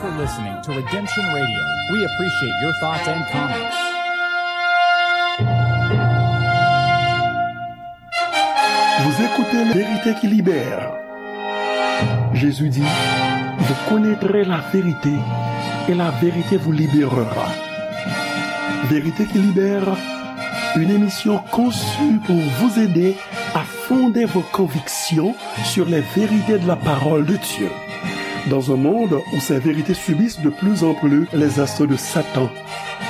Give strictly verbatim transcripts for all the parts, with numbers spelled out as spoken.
for listening to Redemption Radio. We appreciate your thoughts and comments. Vous écoutez La Vérité qui libère. Jésus dit, vous connaîtrez la vérité et la vérité vous libérera. Vérité qui libère, une émission conçue pour vous aider à fonder vos convictions sur les vérités de la parole de Dieu. Dans un monde où ces vérités subissent de plus en plus les assauts de Satan,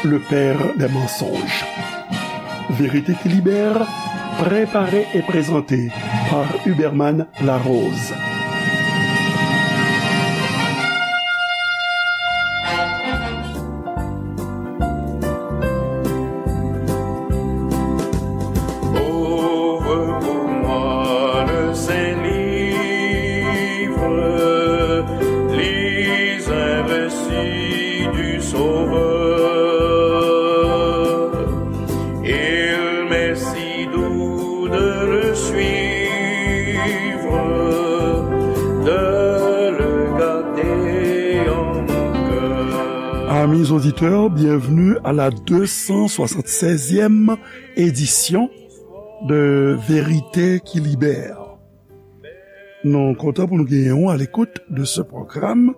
le père des mensonges. Vérité qui libère, préparée et présentée par Huberman Larose. Ouvre pour moi le Saint-Livre, lis un récit du Sauveur. Il m'est si doux de le suivre, de le garder en mon cœur. Amis auditeurs, bienvenue à la deux cent soixante-seizième édition de Vérité qui libère. Nou kontan pou nou genyen w à l'écoute de ce programme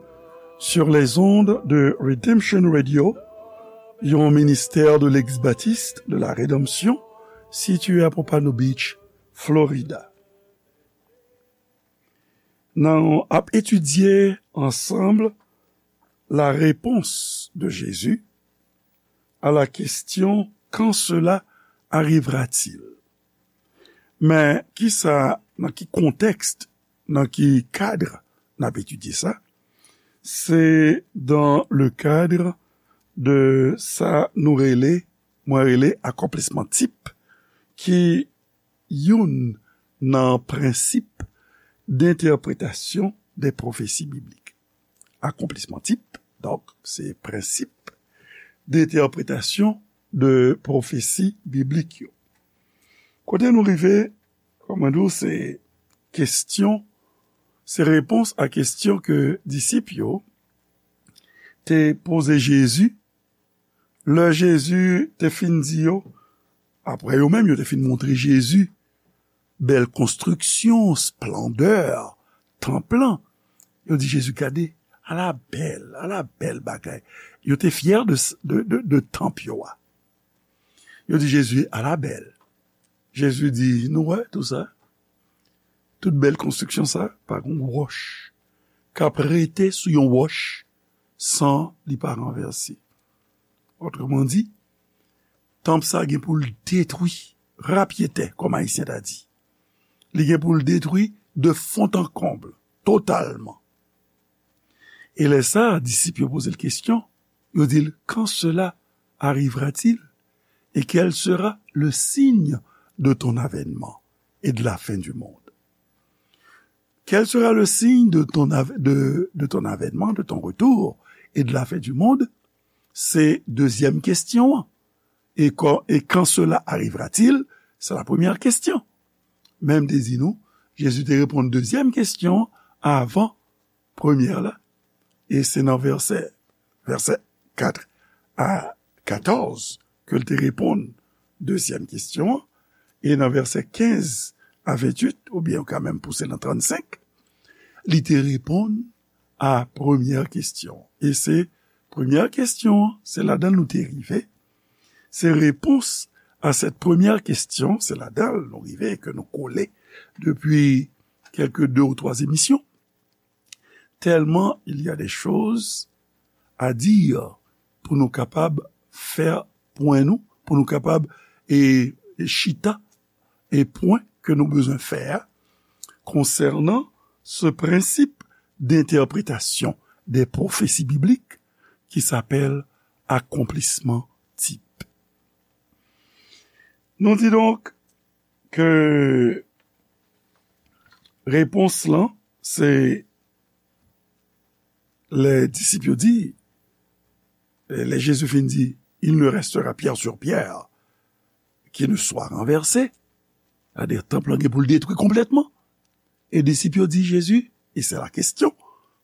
sur les ondes de Redemption Radio, yon ministère de l'Église baptiste de la Rédemption, situé à Pompano Beach, Florida. Nou ap etidye ansanm la réponse de Jésus à la question, quand cela arrivera-t-il? Men kisa, nan ki kontèks, nan ki kad n ap etidye sa? Se dans le cadre de sa nou rele, mwen rele akonplisman tip, ki youn nan prensip dentèpretasyon de pwofesi biblik. Akonplisman tip, donk, se prensip dentèpretasyon de pwofesi biblik yo. Kote nou rive, kòman di w, se kesyon, se repons a kesyon ke disip yo te poze Jezi, lè Jezi te fin di yo, apre yo menm, yo te fin montre Jezi bèl konstriksyon, esplandè tanp lan. Yo di Jezi, "Gade, ala bèl, ala bèl bagay." Yo te fyè de, de, de, de tanp yo a. Yo di Jezi, "Ala bèl." Jezi di, "Nou wè tou sa? Tout bèl konstriksyon sa, pa gon wòch k ap rete sou yon wòch san li pa ranvèse." Otreman di, tanp sa gen pou l detwi, rapyetè, kòm Ayisyen ta di. Li gen pou l detwi de fond en comble, totalman. E lè sa, disip yo poze l kesyon, yo di l, "Quand cela arrivera-t-il? Et quel sera le signe de ton avènement et de la fin du monde?" Quel sera le signe de ton av-, de, de ton avènement, de ton retour et de la fin du monde? Se dezyèm kesyon an. E quand, et quand cela arrivera-t-il? C'est la première question. Men m te di nou, Jezi te reponn dezyèm kesyon an avan premyè la. E se nan vèsè, vèsè kat a katòz ke l te reponn dezyèm kesyon an. E nan vèsè kenz a venntuit, oubyen ou ka menm pouse nan trannsenk, li te reponn a premyè kesyon. E se premyè kesyon an, se ladan l nou te rive. Se repons a sèt premyè kesyon, se ladan l nou rive, ke nou kole depi kèlke de ou twa emisyon. Tèlman il y a des choses à dire pou nou kapab fè pwen nou, pou nou kapab, e, e chita, e pwen ke nou bezwen fè a konsènan se prensip dentèpretasyon de pwofesi biblik ki sapèl akonplisman tip. Nou di donk ke repons lan, se lè disip yo di, lè Jezi fin di, "Il ne restera pierre sur pierre qui ne soit renversée." Sètadi, tanp lan gen pou l detwi konplètman. E disip yo di Jezi, e se la kesyon,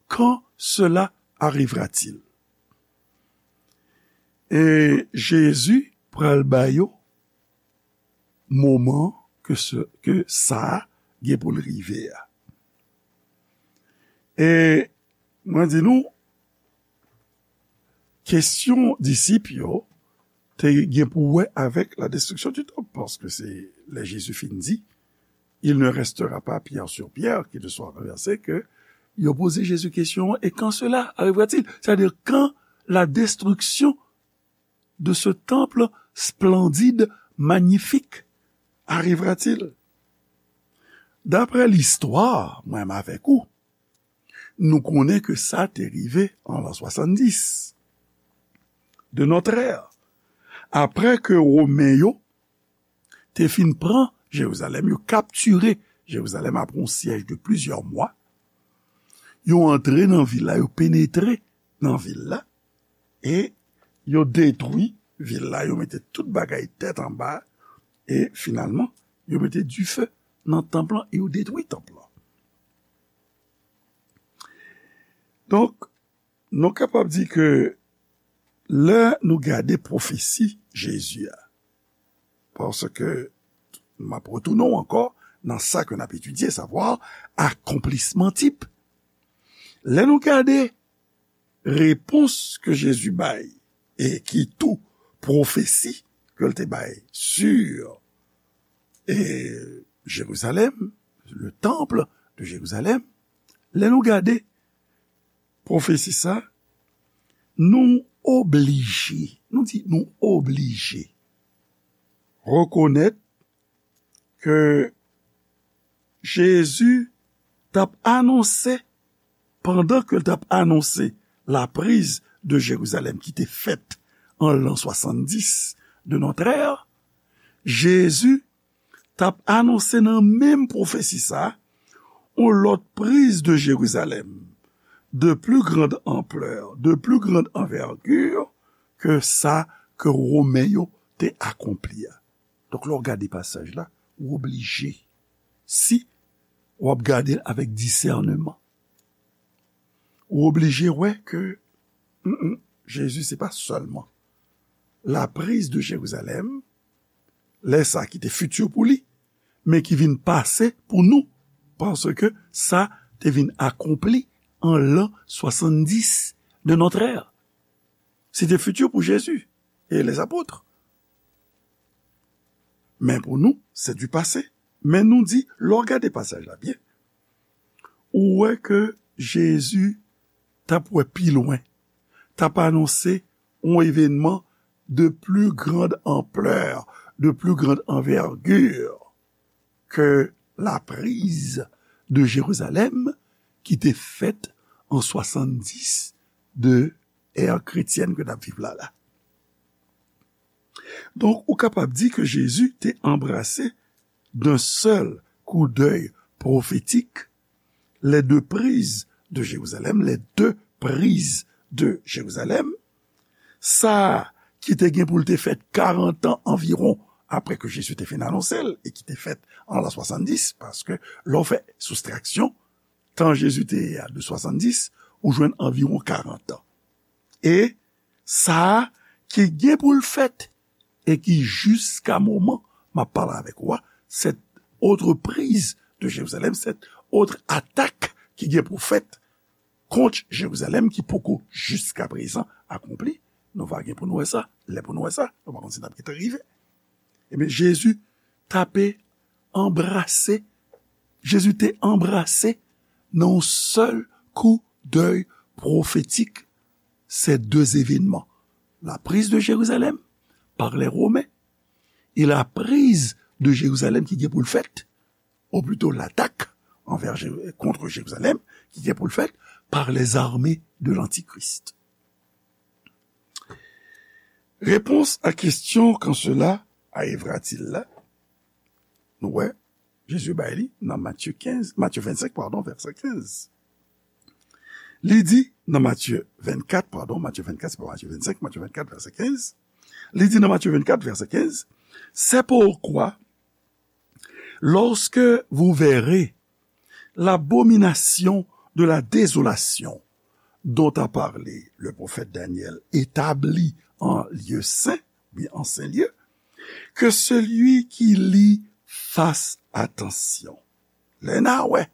"Quand cela arrivera-t-il? E Jezi pral ba yo moman ke se, ke sa a gen pou l rive a. E mwen di nou, kesyon disip yo te gen pou wè avèk la destruction du temple, paske se lè Jezi fin di, il ne restera pas pierre sur pierre qui ne soit renversée, ke yo poze Jezi kesyon, et quand cela arrivera-t-il? C'est-à-dire, quand la destruction de ce temple splendide, magnifique, arrivera-t-il? Daprè listwa, mwen menm avèk ou, nou konnen ke sa te rive an l'an soixante-dix de notre ère. Apre ke Women yo te fin pran Jerizalèm, yo kaptire Jerizalèm apre yon syèj de plizyè mwa, yo antre nan vil la, yo penetre nan vil la, e yo detwi vil la, yo mete tout bagay tèt anba, e finalman, yo mete dife nan tanp lan, e yo detwi tanp lan. Donk, nou kapab di ke lè nou gade pwofesi Jezi a, paske m ap retounen w ankò nan sa ke n ap etidye, savwa akonplisman tip. Lè nou gade repons ke Jezi bay, e ki tou pwofesi ke l te bay sur e Jerizalèm, le temple de Jérusalem, lè nou gade pwofesi sa, nou oblije, nou di nou oblije rekonèt ke Jezi t ap anonse, pandan ke l t ap anonse la prise de Jérusalem ki te fèt an l'an soixante-dix de notre ère, Jezi t ap anonse nan menm pwofesi sa a, yon lòt prise de Jérusalem de plus grande ampleur, de plus grande envergure ke sa ke Women yo te akonpli a. Donk, lè w gade pasaj la, ou oblije, si w ap gade l avèk disèneman, ou oblije wè ke, mm, mm, Jezi se pa sèlman la prise de Jérusalem, lè sa ki te fiti pou li, men ki vin pase pou nou, paske sa te vin akonpli an l'an soixante-dix de notre ère. Se te fiti pou Jezi e les apôtres. Men pou nou, c'est du passé. Men nou di, lè w gade pasaj la byen, ou wè ke Jezi t ap wè pi lwen, t ap anonse yon evènman de plus grande ampleur, de plus grande envergure que la prise de Jérusalem ki te fèt an soixante-dix de ère chrétienne ke n ap viv la la. Donk, ou kapab di ke Jezi te anbrase d'un seul coup d'œil prophétique les deux prises de Jérusalem, les deux prises de Jérusalem, sa ki te gen pou l te fèt karant an anviwon apre ke Jezi te fin anonse l, e ki te fèt an l'an soixante-dix, paske lè w fè soustraksyon, tan Jezi te ye a de soixante-dix, ou jwenn anviwon karant an. E sa a ki gen pou l fèt, e ki jiska moman m ap pale avèk ou a, cette autre prise de Jérusalem, cette autre attaque ki gen pou fèt kont Jerizalèm ki poko jiska prezan akonpli. Nou va gen pou nou wè sa, lè pou nou wè sa, nou pa konn si n ap gentan rive. Ebyen, Jezi t ape anbrase, Jezi te anbrase nan yon sèl kou dèy pwofetik ces deux événements, la prise de Jérusalem par les Romains et la prise de Jérusalem ki gen pou l fèt, ou plito latak anvè Jé-, kont Jerizalèm ki gen pou l fèt par les armées de l'Antichrist. Réponse à question quand cela arrivera-t-il la, nou wè, Jezi bay li nan Matye kenz, Matye vennsenk, padon, vèsè kenz. Li di nan Matye vennkat, padon, Matye vennkat, se pa Matye vennsenk, Matye vennkat, vèsè kenz. Li di nan Matye vennkat, vèsè kenz, c'est pourquoi, lorsque vous verrez l'abomination de la désolation dont a pale le pwofèt Danyèl etabli an lye sen, oubyen an sen lye, ke selui ki li fas atansyon. Lè n a wè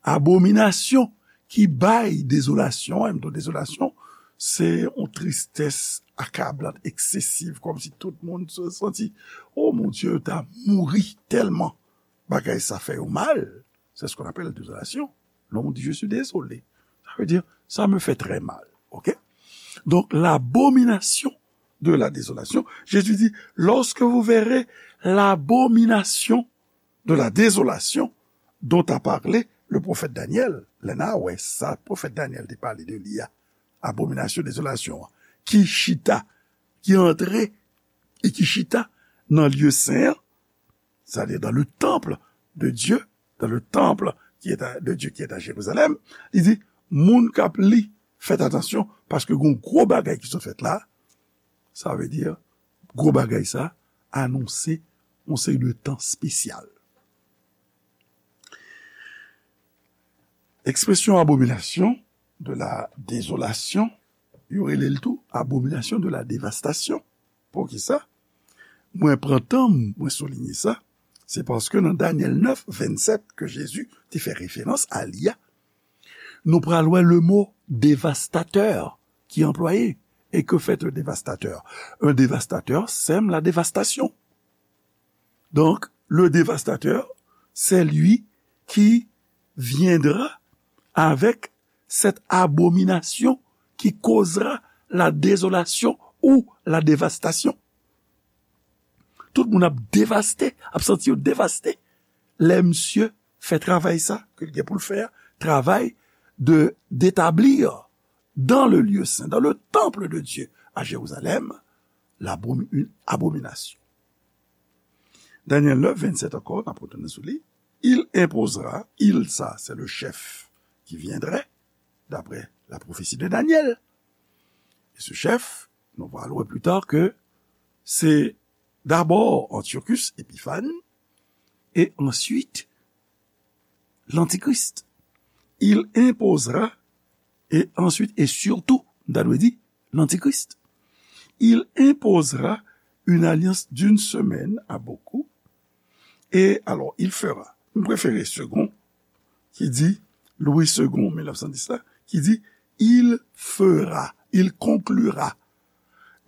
abominasyon ki bay dezolasyon, e m di w dezolasyon, se yon tristès akablant, eksesiv, kòmsi tout moun se santi, o mon Dye, yo ta mouri tèlman bagay sa fè yo mal. C'est ce qu'on appelle la désolation. Lè w di, je suis désolé, sa vle di, ça me fait très mal. Ok? Donc, l'abomination de la désolation, Jésus dit, lorsque vous verrez l'abomination de la désolation dont a parlé le prophète Daniel, lè n a wè sa pwofèt Danyèl te pale de li a, abominasyon dezolasyon an, ki chita, ki antre e ki chita nan lye sen an, c'est-à-dire dans le temple de Dieu, dans le temple qui est à- de Dieu qui est à Jérusalem, li di, moun k ap li, fèt atansyon, paske gon gwo bagay ki sot fèt la, sa vle di, gwo bagay sa anonse yon seri de tan espesyal. Ekspresyon abominasyon de la dezolasyon, yo rele l tou abominasyon de la devastasyon. Poukisa? Mwen pran tan m, mwen soulinye sa, se paske nan Danyèl nèf vennsèt ke Jezi te fè referans a li a, nou pral wè le mo devastatè ki anplwaye. Et que fait un dévastateur? Un dévastateur sème la dévastation. Donc, le dévastateur, c'est lui qui viendra avec cette abomination qui causera la désolation ou la dévastation. Tout moun ap devaste, ap santi yo devaste. Lè misye fè travay sa ke l gen pou l fè a, travay de d'établir dans le lieu saint, dans le temple de Dieu à Jérusalem, l'abomi- une abomination. Danyèl nèf vennsèt ankò, n ap retounen sou li. Il imposera, il, ça, c'est le chef qui viendrait, d'après la prophétie de Daniel. Et ce chef, nous allons voir plus tard que c'est d'abord Antiochus Épiphanes et ensuite l'Antichrist. Il imposera, et ensuite et surtout, m ta dwe di, l'Antichrist. Il imposera une alliance d'une semaine à beaucoup. Et alors, il fera. M prefere Segond, ki di, Louis Segond, mil nèf san dis la, ki di, il fera, il conclura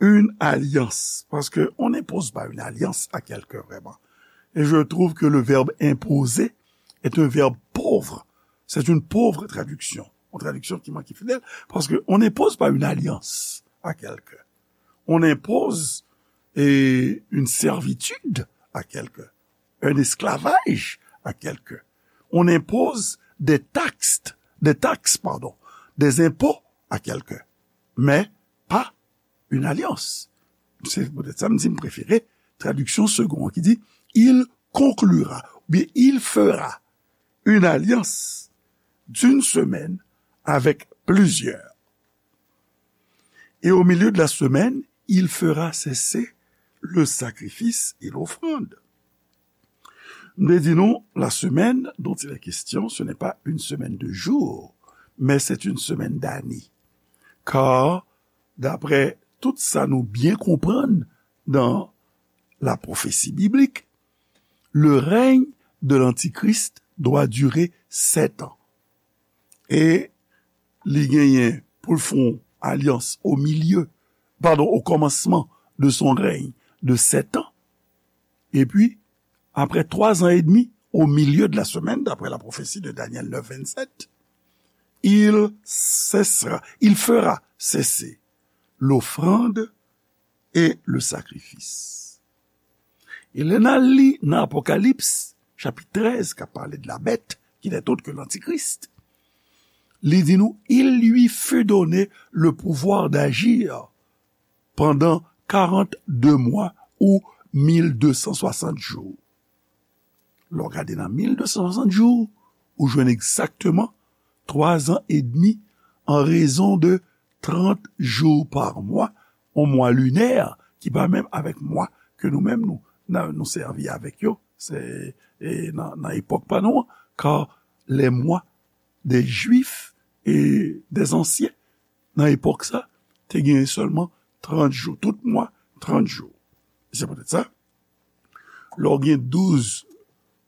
une alliance. Parce que on n'impose pas une alliance à quelqu'un, vraiment. Et je trouve que le verbe imposer est un verbe pauvre. C'est une pauvre traduction. Une traduction qui manque fidèle. Parce que on n'impose pas une alliance à quelqu'un. On impose, eh, une servitude à quelqu'un. Un esclavage à quelqu'un. On impose des taxes, des taxes, pardon, des impôts à quelqu'un. Mais pas une alliance. Se poutèt sa m di m prefere tradiksyon Segond an ki di, il conclura, oubyen il fera une alliance d'une semaine avec plusieurs. Et au milieu de la semaine, il fera cesser le sacrifice et l'offrande. M te di nou, la semaine dont il est question, ce n'est pas une semaine de jours, mais c'est une semaine d'années. Car, d'après tout sa nou byen konprann dans la prophétie biblique, le règne de l'Antichrist doit durer sept ans. E li genyen pou l fè yon alyans au milieu, pardon, au commencement de son règne de sept ans. Et puis, après trois ans et demi, au milieu de la semaine, d'après la prophétie de Daniel neuf vingt-sept, il cessera, il fera cesser l'offrande et le sacrifice. E lè n al li nan Apokalips, chapit trèz, k ap pale de la bête, qui n'est autre que l'Antichrist, li di nou, il lui fut donné le pouvoir d'agir pendant quarante-deux mois ou mil de san swasant jou. Lè w gade nan mil de san swasant jou, ou jwenn egzakteman twa zan edmi an rezon de trant jou pa mwa, yon mwa linè ki pa menm avèk mwa ke nou menm nou, nan, nou sèvi avèk yo, se, e, nan, nan epòk pa nou an, car les mois des Juifs e, dèzansyen, nan epòk sa, te genyen sèlman trant jou. Tout mwa, trant jou. Se poutèt sa, lè w gen douz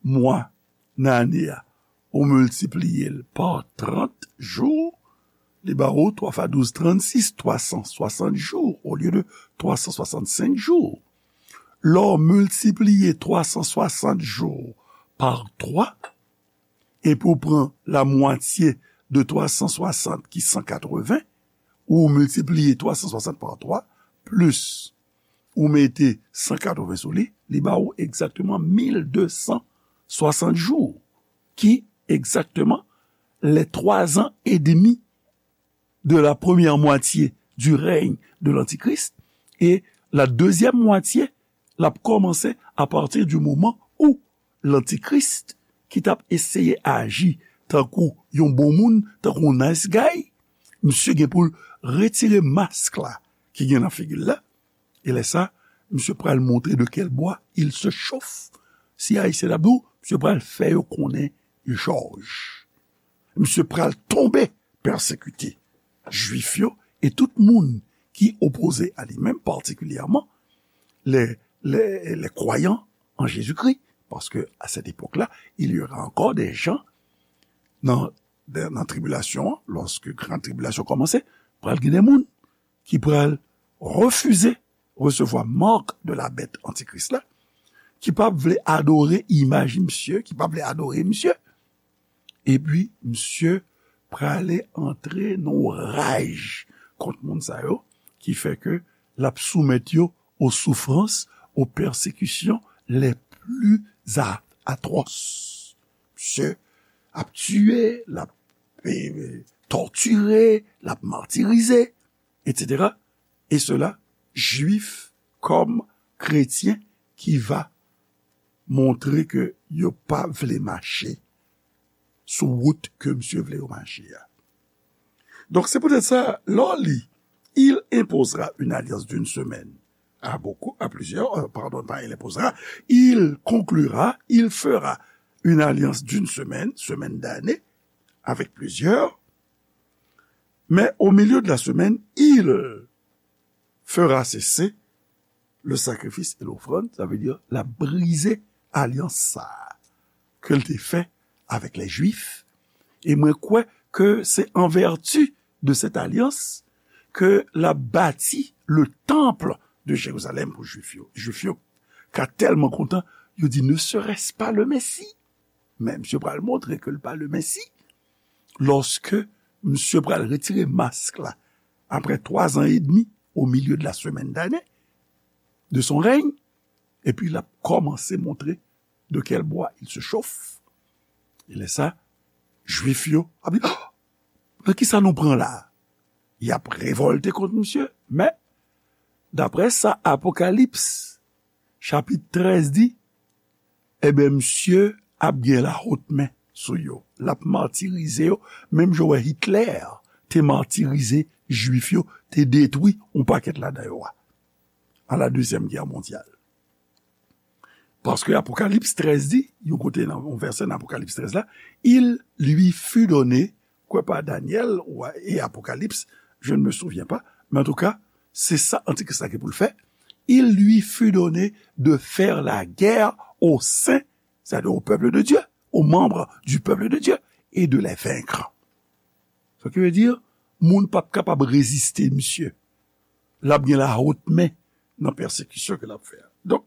mwa nan ane a, ou miltipliye l pa trant jou, li ba ou twa fwa douz, trannsis, twa san swasant jou olye de twa san swasannsenk jou. Lè w miltipliye twa san swasant jou pa twa, epi w pran lamwatye de twa san swasant ki san katreven, ou miltipliye twa san swasant pa twa, plis ou mete san katreven sou li, li ba ou egzakteman mil de san swasant jou, ki egzakteman les trois ans et demi de la première moitié du règne de l'Antichrist, et la deuxième moitié, l ap kòmanse apati di moman ou Lantikris, ki t ap eseye aji tankou yon bon moun, tankou yon nice guy, misye gen pou l retire mask la ki gen nan figi l la, e lè sa, misye pral montre de quel bois il se chauffe. Si Ayisyen t ap di w, misye pral fè yo konnen jòj. Misye pral tonbe pèsekite Jwif yo e tout moun ki opoze a li menm, patikilyèman les, les, les croyants en Jésus-Christ, parce que à cette époque-là, il y aura encore des gens nan, nan tribilasyon an, lòske gran tribilasyon kòmanse, pral gen de moun ki pral refize resevwa mark de la bèt antikris la, ki p ap vle adore imaj misye, ki p ap vle adore misye. Epi, misye prale antre nan yon raj kont moun sa yo, ki fè ke l ap soumèt yo aux souffrances, aux persécutions les plus a-, atroces. Misye ap tiye, l ap, eh, tòtire, l ap matirize, et cetera. Et cela, Jwif kòm kretyen ki va montre ke yo pa vle mache sou wout ke misye vle yo mache a. Donk, se poutèt sa, lè w li, il imposera une alliance d'une semaine à beaucoup, à plusieurs, euh, pardon, pas il imposera, il conclura, il fera une alliance d'une semaine, semaine d'année, avec plusieurs, mais au milieu de la semaine, il fera cesser le sacrifice et l'offrande, sa vle di, l ap brize alyans sa a ke l te fè avèk lè Jwif. E mwen kwè ke se an vèti de cette alliance ke l ap bati le temple de Jérusalem pou Jwif yo. Jwif yo ka tèlman kontan, yo di, ne serait-ce pas le Messie? Men misye pral montre ke l pa le Messie. Lòske misye pral retire mask la, après trois ans et demi, au milieu de la semaine d'année de son règne, epi l ap kòmanse montre de quel bois il se chauffe. E lè sa, Jwif yo ap di, "Oh, nan kisa nou pran la?" Y ap revòlte kont misye, men, daprè sa Apokalips, chapit trèz di, enben, misye ap gen lawotmen sou yo. L ap matirize yo, menm jan w wè Hitler te matirize Jwif yo, te detwi yon pakèt ladan yo a, à la Deuxième Guerre mondiale. Paske Apokalips trèz di, yon kote nan yon vèsè nan Apokalips trèz la, il lui fut donné, kwè pa Danyèl ou e Apokalips, je ne me souviens pas, men antouka, se sa Antikris la gen pou l fè. Il lui fut donné de faire la guerre aux saints, c'est-à-dire au peuple de Dieu, aux membres du peuple de Dieu, et de les vaincre. Sa ki vle di, moun p ap kapab reziste misye. L ap gen lawotmen nan pèsekisyon ke l ap fè a. Donk,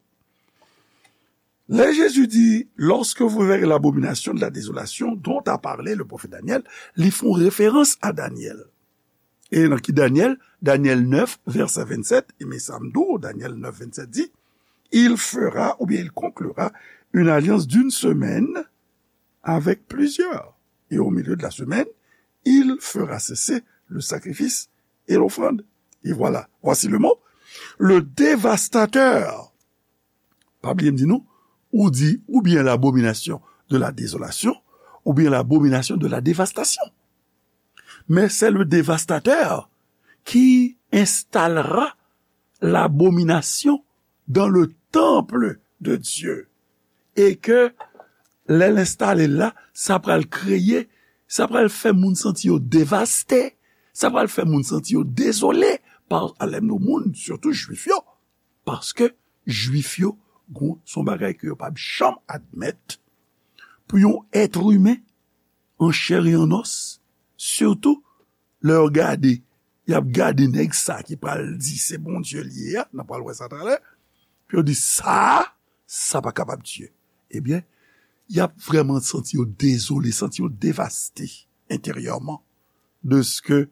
lè Jezi di, lorsque vous verrez l'abomination de la désolation dont a parlé le prophète Daniel, li fè yon referans a Danyèl. E nan ki Danyèl? Danyèl nèf, vèsè vennsèt, e men sa m di w, Danyèl nèf, vennsèt di, il fera, ou bien il conclura, une alliance d'une semaine avec plusieurs. Et au milieu de la semaine, il fera cesser le sacrifice et l'offrande. Et voilà, voici le mot, le dévastateur. Pa bliye m di nou, ou di, ou bien l'abomination de la désolation, ou bien l'abomination de la dévastation. Mais c'est le dévastateur qui installera l'abomination dans le temple de Dieu. Et que lè l enstale la, sa pral kreye Sa pral fè moun santi yo devaste. Sa pral fè moun santi yo dezole pa alèm nou moun, sitou jwif yo. Paske jwif yo, gon, se yon bagay ke yo p ap janm admèt pou yon èt imen an chè e an nòs, sitou lè yo gade, y ap gade nèg sa ki pral di se Bondye li ye a, n ap pral wè sa talè, pou yo di sa, sa pa kapab Dye. Ebyen, y ap vrèman santi yo dezole, santi yo devaste enteryèman, dèske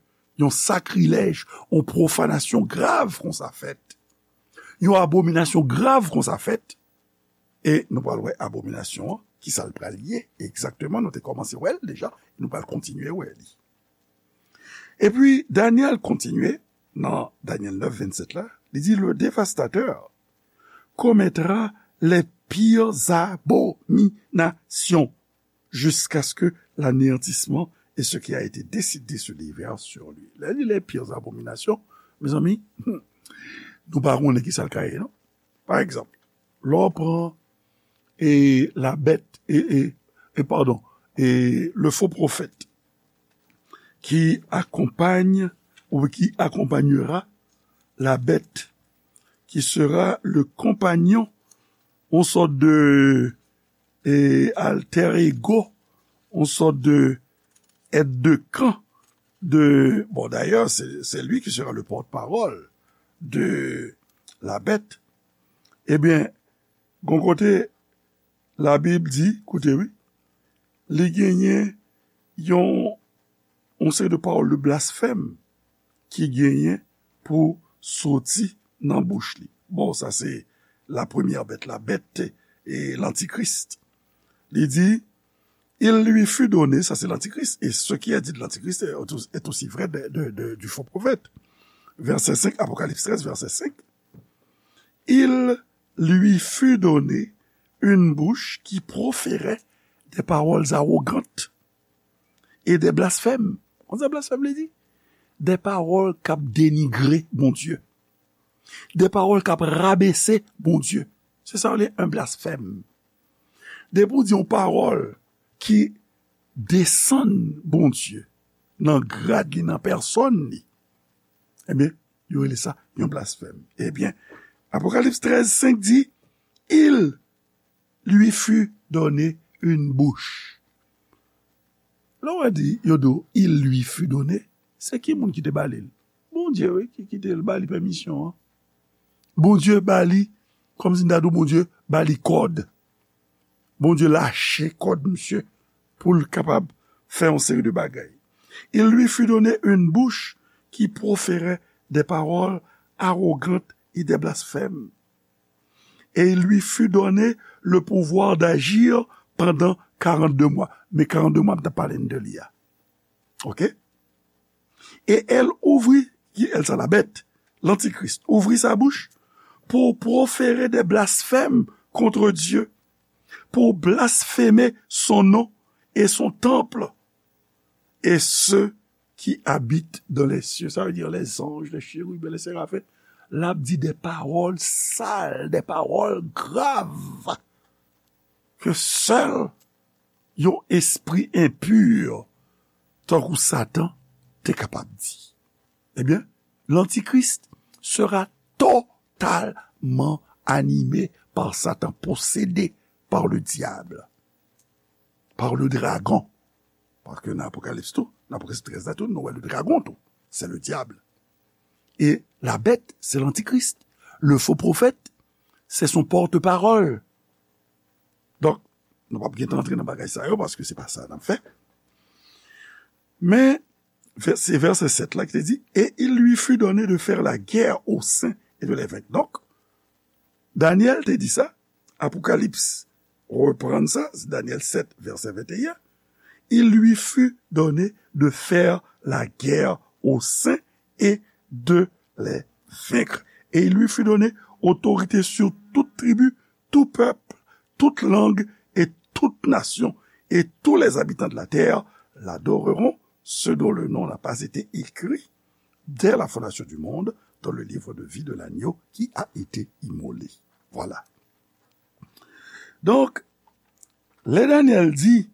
yon sakrilèj, yon pwofanasyon grav konsa fèt, yon abominasyon grav konsa fèt, e nou pral wè abominasyon an, ki sa l pral ye egzakteman, nou te kòmanse wè l deja, nou pral kontinye wè li. Epi, Danyèl kontinye nan Danyèl nèf vennsèt la, li di, le dévastateur commettra les pires abominations jusqu'à ce que l'anéantissement et ce qui a été décidé se déverse sur lui. Lè li les pires abominations, mezanmi, nou pa konnen ki sa l ka ye, non? Pa egzanp, lè w pran e la bête, et, et, et pardon, et le faux prophète qui accompagne ou qui accompagnera la bête, qui sera le compagnon, on sort de et alter ego, on sort de aide de camp de, bon, d'ailleurs, c'est, c'est lui qui sera le porte-parole de la bête. Ebyen, gon kote, Labib di, koute wi, li genyen yon, yon seri de pawòl de blasfèm ki genyen pou soti nan bouch li. Bon, sa se la première bête, la bête, e, l'antichrist. Li di, il lui fut donné, sa se l'antichrist, et ce qui est dit de l'antichrist est, est aussi vrai de, de, de, du faux prophète. Verset cinq, Apocalypse treize, verset cinq. Il lui fut donné une bouche qui proférait des paroles arrogantes et des blasphèmes. Konn sa blasfèm vle di? Des paroles k ap denigre Bondye. Des paroles k ap rabese Bondye. Se sa yo rele un blasphème. Depi w di yon pawòl ki desann Bondye nan grad li, nan pèsòn li, ebyen, yo rele sa yon blasfèm. Ebyen, Apokalips trèz senk di, il lui fut donné une bouche. Lè w di, yo di w, il lui fut donné, se ki moun ki te ba li l? Bondye, wi, ki, ki te ba li pèmisyon an. Bondye ba li, kòmsi n ta di w, Bondye ba li kòd. Bondye lache kòd misye pou l kapab fè yon seri de bagay. Il lui fut donné une bouche qui proférait des paroles arrogantes et des blasphèmes. Et il lui fut donné le pouvoir d'agir pendant quarante-deux mois. Men karannde mwa m t ap pale n de li a. Oke? Et elle ouvrit, qui elle, ça, la bête, l'antichrist, ouvrit sa bouche pour proférer des blasphèmes contre Dieu, pour blasphémer son nom et son temple, et ceux qui habitent dans les cieux. Ça veut dire les anges, les chérubins, les séraphins. L ap di de pawòl sal, de pawòl grav ke sèl yon espri enpi, tankou Satan, te kapab di. Ebyen, l'antichrist sera totalement animé par Satan, possédé par le diable, par le dragon. Paske nan Apokalips tou, nan Apokalips trèz la tou, nou wè le dragon tou. C'est le diable. Et la bête, c'est l'antichrist. Le faux prophète, c'est son porte-parole. Donk, nou p ap gen tan antre nan bagay sa yo, paske se pa sa n ap fè. Men, vè-, se vèsè sèt la ki te di, et il lui fut donné de faire la guerre aux saints et de les vaincre. Donk, Danyèl te di sa, Apokalips reprann sa, se Danyèl sèt, vèsè venteyen, il lui fut donné de faire la guerre aux saints et de les vaincre. Et il lui fut donné autorité sur toute tribu, tout peuple, toute langue et toute nation, et tous les habitants de la terre l'adoreront, ceux dont le nom n'a pas été écrit dès la fondation du monde dans le livre de vie de l'agneau qui a été immolé. Voilà. Donk, lè Danyèl di,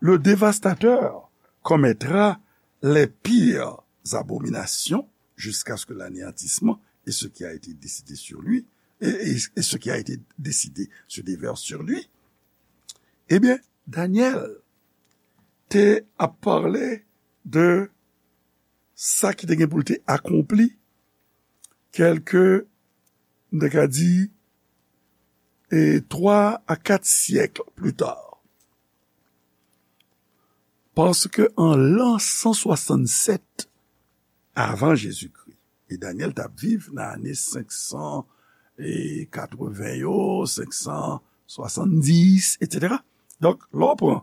le dévastateur commettra les pires abominations jusqu'à ce que l'anéantissement et ce qui a été décidé sur lui, et, et, et ce qui a été décidé se déverse sur lui. Ebyen, Danyèl te ap pale de sa ki te gen pou l te akonpli kèlke, m te ka di, e twa a kat syèk pli ta. Paske an lan san swasannsèt avan Jezikri, e Danyèl t ap viv nan ane senk san katreven yo, senk san swasanndis, etsetera. Donk, lè w pran,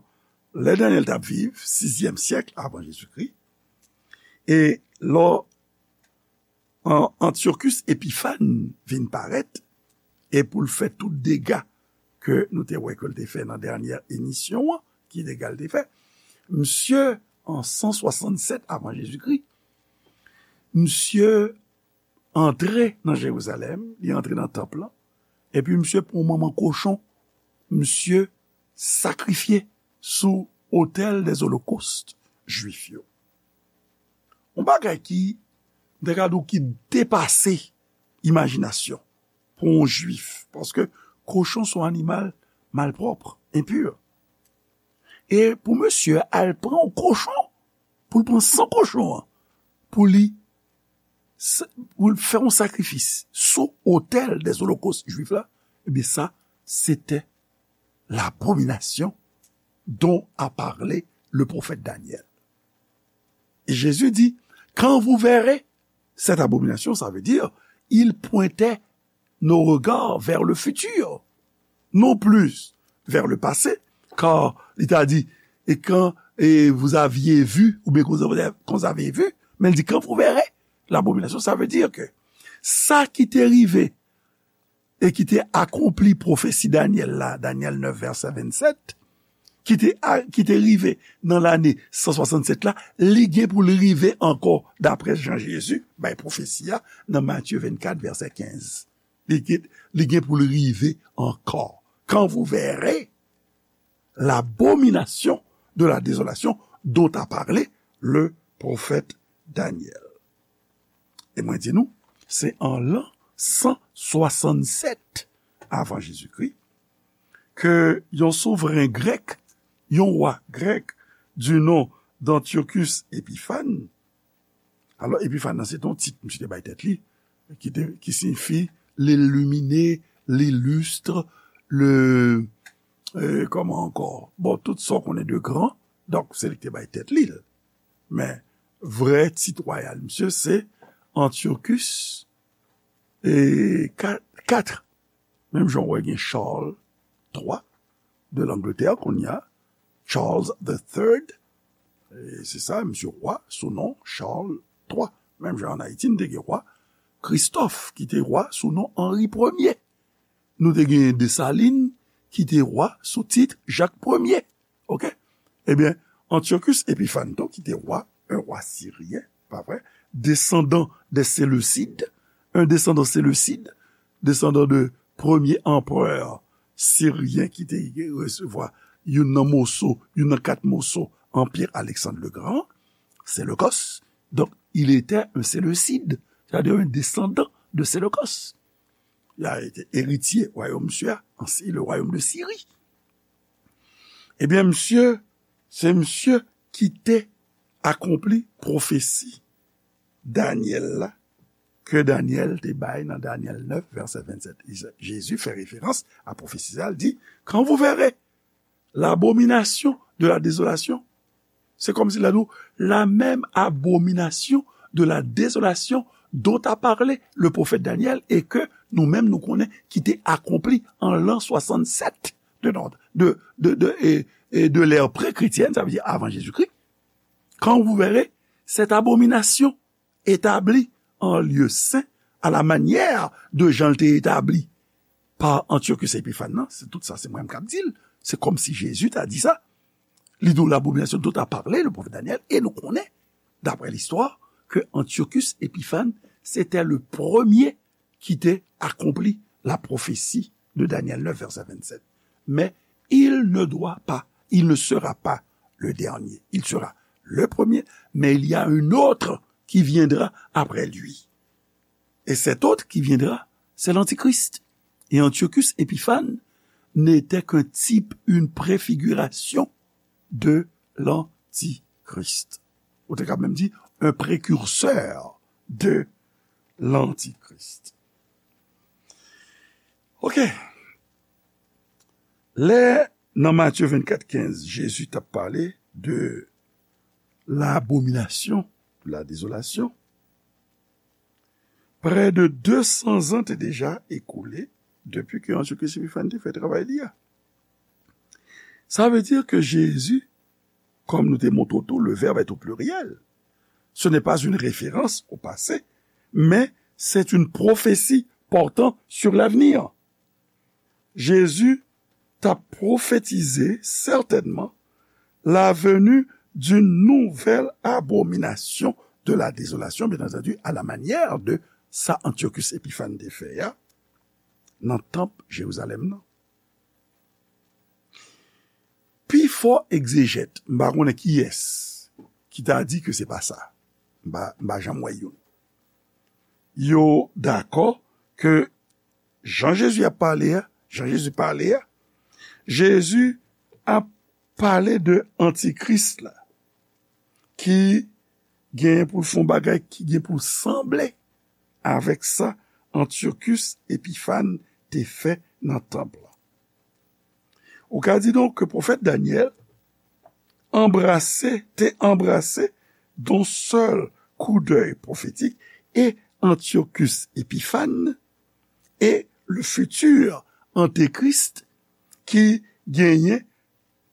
lè Danyèl t ap viv, sizyèm syèk avan Jezikri, e lè w an, Antyochus Epifàn vin parèt, e pou l fè tout dega ke nou te wè ke l te fè nan dènyè emisyon an, ki dega l te fè? Misye, an san swasannsèt avan Jezikri, misye antre nan Jerizalèm, li antre nan tanp lan, epi misye pran manman kochon, misye sakrifye sou otèl dèzolokòs jwif yo. Yon bagay ki, m te ka di w, ki depase imajinasyon pou yon jwif, paske kochon se yon animal malpwòp, enpi. E pou misye al pran yon kochon, pou l pran san kochon an, pou li, pou l fè yon sakrifis sou otèl dèzolokòs jwif la, ebyen sa, se te l'abomination dont a parlé le prophète Daniel. Et Jésus dit, quand vous verrez cette abomination, ça veut dire, il pointait nos regards vers le futur, non plus vers le passé, car il t'a dit, et quand et vous aviez vu, ou bien quand vous avez, quand vous avez vu, men li di, quand vous verrez l'abomination, ça veut dire que sa ki te rive e ki te akonpli pwofesi Danyèl la, Danyèl nèf, vèsè vennsèt, ki te, a, ki te rive nan lane san swasannsèt la, li gen pou l rive ankò, daprè jan Jezi bay pwofesi a nan Matye vennkat, vèsè kenz. Li gen, li gen pou l rive ankò. Quand vous verrez l'abomination de la désolation dont a parlé le prophète Daniel. E mwen di nou, se an lan san swasannsèt avan Jezikri ke yon souvren grèk, yon wa grèk, du nom d'Antiochus Epiphanes. Alò, Epifàn nan se te yon tit misye te bay tèt li, ki te, ki siyifi l'illuminé, l'illustre, le, euh, kòman ankò? Bon, tout sa w konnen de gran, donk se li ki te bay tèt li l. Men, vrè tit wayal misye se Antiochus e ka-, kat. Menm jan w wè gen Charles twa de Langletè kounye a, Charles the third, e se sa, misye wa sou non Charles twa. Menm jan ann Ayiti, n te gen wa Kristòf, ki te wa sou non Anri premye. Nou te gen Desalin, ki te wa sou tit Jak premye. Oke? Ebyen, Antiochus Epiphanes tou, ki te wa, un roi syrien, pa vre? Descendant des Séleucides, un descendant séleucide, descendant de premye anperè siryen ki te resevwa youn nan moso, youn nan kat moso Anpye Alexandre le Grand, Séleucos. Donc, il était un Séleucide, c'est-à-dire un descendant de Séleucos. Il a été héritier royaume misye a, ansi le royaume de Syrie. Ebyen, misye, se misye ki te akonpli pwofesi Danyèl la, ke Danyèl te bay nan Danyèl nèf, vèsè vennsèt. Jezi fè referans a pwofesi sa, l di, quand vous verrez l'abomination de la désolation, c'est comme si la, la même abomination de la désolation dont a parlé le prophète Daniel et que nou menm nou konnen ki te akonpli an lan swasannsèt de, de, de, de, e, e de l'ère pré-chrétienne, sa vle di avan Jezikri. Quand vous verrez cette abomination établie en lieu saint à la manière de jan l te etabli pa Antiochus Epiphanes nan, se tout sa, se mwen menm k ap di l. Se kòmsi Jezi ta di sa. Li di w l'abomination dont a parlé le prophète Daniel, e nou konnen, d'après l'histoire, que Antiochus Epiphanes, c'était le premier ki te akonpli la prophétie de Daniel neuf, verset vingt-sept. Mais il ne doit pas, il ne sera pas le dernier. Il sera le premier, mais il y a un autre qui viendra après lui. Et cet autre qui viendra, c'est l'Antichrist. Et Antiochus Épiphanes n'était qu'un type, une préfiguration de l'Antichrist. Ou te ka menm di, un précurseur de l'Antichrist. Ok. Lè, nan Matye vennkat kenz, Jezi t ap pale de l'abomination, de la désolation, prè de de san zan te deja ekoule depi ke Antiochus Épiphanes te fè travay li a. Sa vle di ke Jezi, comme nous te montrons tout, le verbe est au pluriel. Ce n'est pas une référence au passé, mais c'est une prophétie portant sur l'avenir. Jezi t ap pwofetize sètènman la venue d'une nouvelle abomination de la désolation, bien entendu, à la manière de sa Antiochus Épiphanes te fè a nan tanp Jerizalèm nan. Pifò egzejèt, m pa konnen kiyès ki ta di ke se pa sa. M pa, m pa janm wè youn. Yo dakò ke jan Jezi ap pale a, jan Jezi pale a, Jezi ap pale de antikris la, ki gen pou l fè yon bagay ki gen pou l sanble avèk sa Antiochus Épiphanes te fè nan tanp lan. Ou ka di donk ke pwofèt Danyèl anbrase, te anbrase d'un seul coup d'œil prophétique et Antiochus Épiphanes et le futur antéchrist ki genyen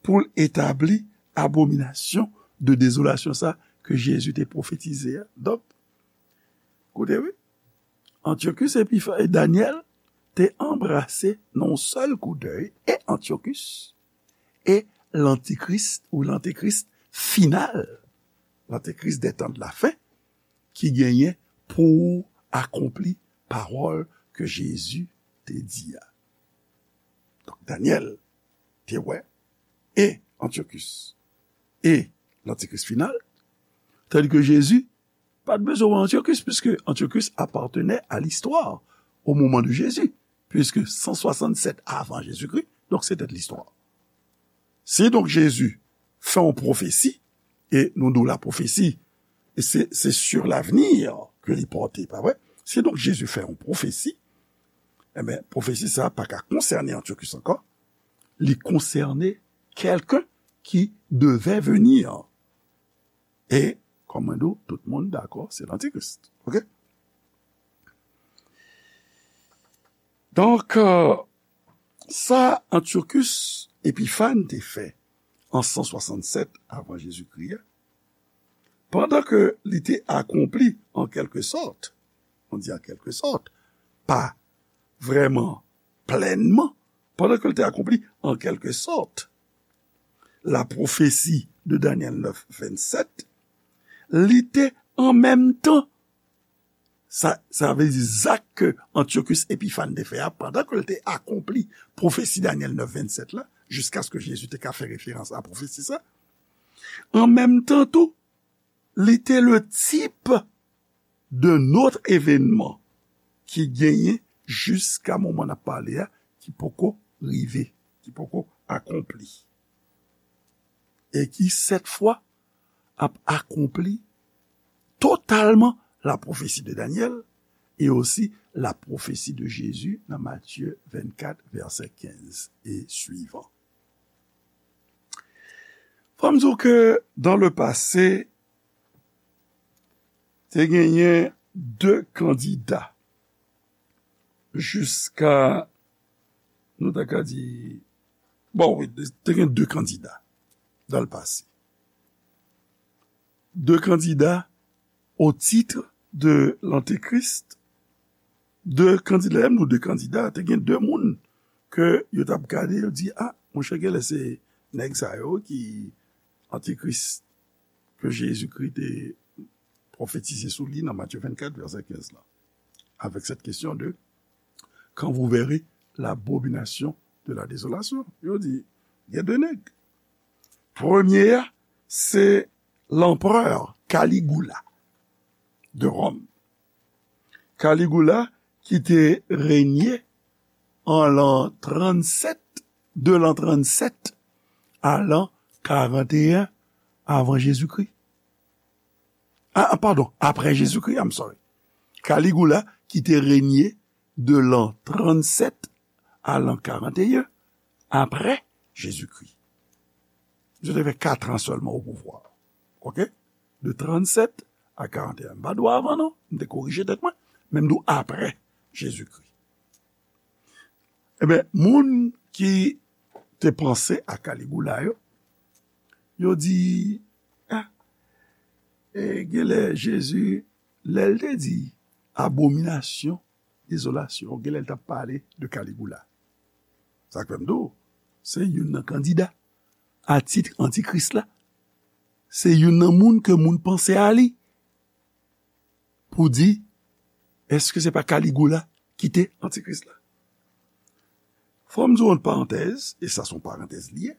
pou l etabli abominasyon de dezolasyon sa ke Jezi te pwofetize a. Donk, koute wi, Antiochus Épiphanes, Danyèl te anbrase nan yon sèl kou dèy e Antiochus e lantikris ou lantekris final, lantekris des temps de la fin, ki genyen pou akonpli pawòl ke Jezi te di a. Donk, Danyèl te wè e Antiochus e lantikris final, tandis ke Jezi pa t bezwen wè Antiochus, puisque Antiochus appartenait à l'histoire au moment de Jésus, puisque cent soixante-sept avant Jésus-Christ, donc c'était de l'histoire. Si donk Jezi fè yon pwofesi, e nou di w la pwofesi, e se, se sur l'avenir ke li pòte, pa vre? Si donk Jezi fè yon pwofesi, enben, pwofesi sa a pa ka konsène Antiochus ankò, li konsène quelqu'un qui devait venir. E, kòm mwen di w, tout moun dakò, se lantikris. Ok? Donk, euh, sa Antiochus Épiphanes te fè an san swasannsèt avan Jezikri a, pandan ke li te akonpli an kèlke sòt, on di an kèlke sòt, pa vrèman plènman, pandan ke l te akonpli an kèlke sòt la pwofesi de Danyèl nèf vennsèt, li te an menm tan, sa, sa vle di zak ke Antiochus Épiphanes te fè a, pandan ke l te akonpli pwofesi Danyèl nèf vennsèt la, jiskaske Jezi te ka fè referans a pwofesi sa, an menm tan tou, li te le tip de lòt evènman ki genyen jiska moman n ap pale a, ki poko rive, ki poko akonpli. E ki, sèt fwa, ap akonpli totalman la pwofesi de Danyèl e osi la pwofesi de Jezi nan Matye vennkat, vèsè kenz e swivan. Fò m di w ke dans le passé, te genyen de kandida jiska, nou ta ka di, bon, wi, te gen de kandida dans le passé. De kandida au titre de l'antéchrist. De kandida, lè m di de kandida, te gen de moun ke yo t ap gade, yo di, a, monchè, genlè se nèg sa yo ki antikris ke Jezikri te pwofetize sou li nan Matye vennkat, vèsè kenz la, avec cette question de quand vous verrez l'abomination de la désolation. Yo di, gen de nèg. Premye a, se l'empereur Caligula de Rome. Caligula ki te renye an l'an trannsept, de l'an trannsept à l'an quarante et un avant Jésus-Christ. Ah, pardon, après Jésus-Christ, I'm sorry. Caligula ki te renye de l'an trannsept à l'an quarante et un après Jésus-Christ. Misye te fè kat an sèlman o pouvwa. Oke? De trannsept à quarante et un. M pa di w avan non, m te korije tèt mwen, men m di w aprè Jezikri. Ebyen, moun ki te panse a Kaligula yo, yo di, ah, e, genlè Jezi, lè l te di abominasyon, dezolasyon, genlè l t ap pale de Kaligula. Sa k fè m di w, se youn nan kandida a tit antikris la. Se youn nan moun ke moun panse a li pou di, èske se pa Kaligula ki te antikris la? Fò m di w yon parantèz, e sa se yon parantèz li ye.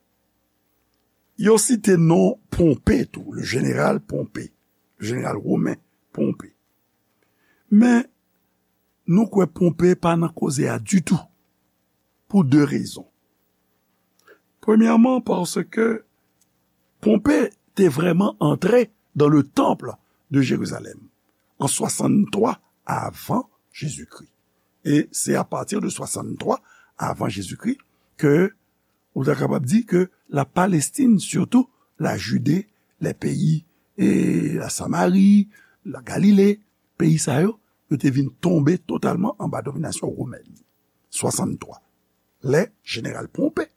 Yo site non Ponpe tou, le jeneral Ponpe, le jeneral women Ponpe. Men, nou kwè Ponpe pa nan koze a ditou, pou de rezon. Premyèman, paske Ponpe te vrèman antre dans le temple de Jérusalem en soixante-trois avant Jésus-Christ. E se apati de soixante-trois avant Jésus-Christ ke ou ta kapab di ke la Palestine, surtout la Judée, les pays, e la Samarie, la Galilée, peyi sa yo, yo te vin tonbe totalman anba dominasyon womèn. Swasanntwa. Lè jeneral Ponpe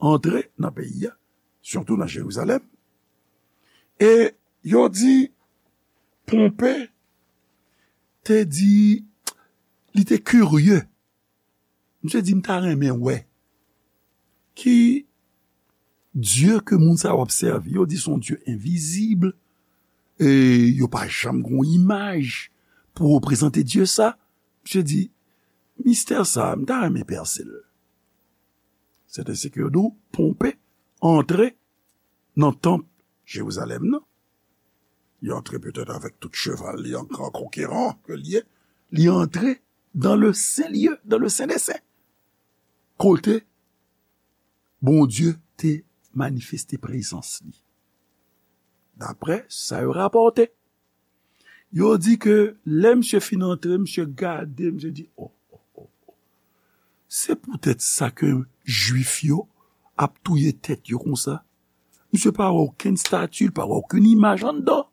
antre nan peyi a, sitou nan Jerizalèm, e yo di Ponpe te di, li te kirye. Misye di, "M ta renmen wè ki Dye ke moun sa yo ap sèvi." Yo di se yon Dye envizib, e yo pa janm gen yon imaj pou reprezante Dye sa. Misye di, "Mistè sa, m ta renmen pèse l." Sèten se ke yo di w, Ponpe antre nan tanp Jerizalèm nan. Li antre petèt avèk tout cheval li an gran konkeran ke li ye. Li antre dans le saint lieu, dans le saint des saints. Kote Bondye te manifeste prezans li. Daprè sa yo rapòte, yo di ke lè misye fin antre, misye gade, misye di, "Oh, oh, oh, oh. Se poutèt sa ke Jwif yo ap touye tèt yo konsa." Misye pa wè okenn estati, li pa wè okenn imaj anndan.